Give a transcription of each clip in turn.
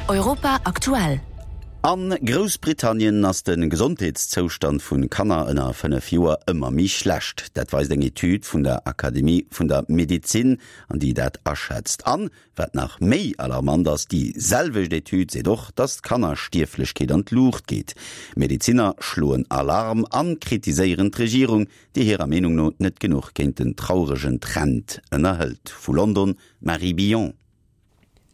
Europa aktuell. A Groussbritannien ass de Gesondheetszoustand vu Kanner ënner 5 Joer ëmmer méi schlecht. Dat weist eng Etüd vun der Akademie vun der Medezin, an déi dat aschätzt. An, wat nach méi alarmant ass, déi selwecht Etüd seet och, datt d'Kannerstierflechkeet an d'Luucht geet. Medezinner schloen Alarm an kritiséieren d'Regierung, déi hirer Meenung no net genuch géint den trauregen Trend ënnerhëlt. Vu London, Marie Billon.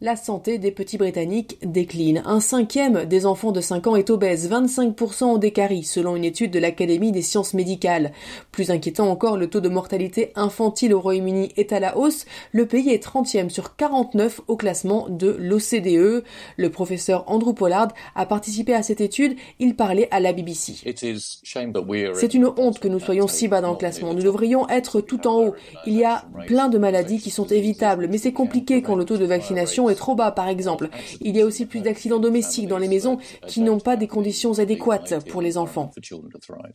La santé des petits Britanniques décline. Un cinquième des enfants de 5 ans est obèse, 25% ont des caries, selon une étude de l'Académie des sciences médicales. Plus inquiétant encore, le taux de mortalité infantile au Royaume-Uni est à la hausse. Le pays est 30e sur 49 au classement de l'OCDE. Le professeur Andrew Pollard a participé à cette étude. Il parlait à la BBC. C'est une honte que nous soyons si bas dans le classement. Nous devrions être tout en haut. Il y a plein de maladies qui sont évitables, mais c'est compliqué quand le taux de vaccination est trop bas, par exemple. Il y a aussi plus d'accidents domestiques dans les maisons qui n'ont pas des conditions adéquates pour les enfants.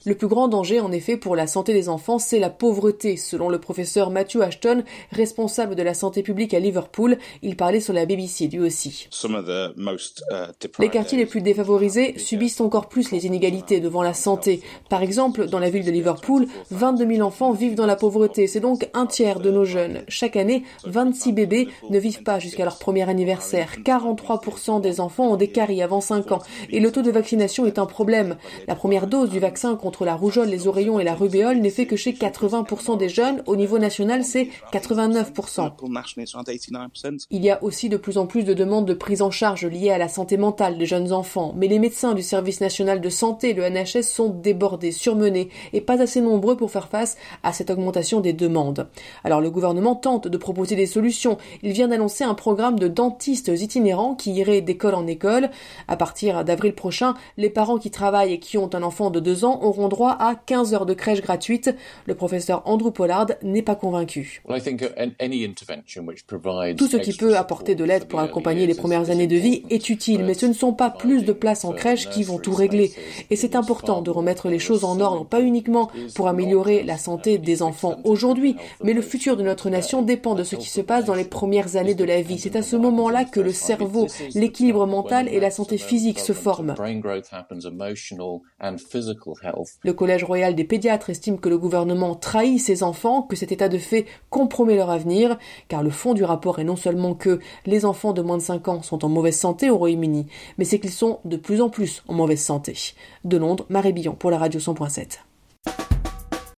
Le plus grand danger, en effet, pour la santé des enfants, c'est la pauvreté. Selon le professeur Matthew Ashton, responsable de la santé publique à Liverpool, il parlait sur la BBC lui aussi. Uh, les quartiers les plus défavorisés subissent encore plus les inégalités devant la santé. Par exemple, dans la ville de Liverpool, 22 000 enfants vivent dans la pauvreté. C'est donc un tiers de nos jeunes. Chaque année, 26 bébés ne vivent pas jusqu'à leur premier anniversaire. 43% des enfants ont des caries avant 5 ans. Et le taux de vaccination est un problème. La première dose du vaccin contre la rougeole, les oreillons et la rubéole n'est fait que chez 80% des jeunes. Au niveau national, c'est 89%. Il y a aussi de plus en plus de demandes de prise en charge liées à la santé mentale des jeunes enfants. Mais les médecins du service national de santé, le NHS, sont débordés, surmenés et pas assez nombreux pour faire face à cette augmentation des demandes. Alors le gouvernement tente de proposer des solutions. Il vient d'annoncer un programme de dentistes itinérants qui iraient d'école en école. À partir d'avril prochain, les parents qui travaillent et qui ont un enfant de deux ans auront droit à 15 heures de crèche gratuite. Le professeur Andrew Pollard n'est pas convaincu. Tout ce qui peut apporter de l'aide pour accompagner les premières années de vie est utile, mais ce ne sont pas plus de places en crèche qui vont tout régler. Et c'est important de remettre les choses en ordre, pas uniquement pour améliorer la santé des enfants aujourd'hui, mais le futur de notre nation dépend de ce qui se passe dans les premières années de la vie. C'est à ce moment-là que le cerveau, l'équilibre mental et la santé physique se forment. Le Collège royal des pédiatres estime que le gouvernement trahit ses enfants, que cet état de fait compromet leur avenir, car le fond du rapport est non seulement que les enfants de moins de 5 ans sont en mauvaise santé au Royaume-Uni, mais c'est qu'ils sont de plus en plus en mauvaise santé. De Londres, Marie Billon pour la radio 100.7.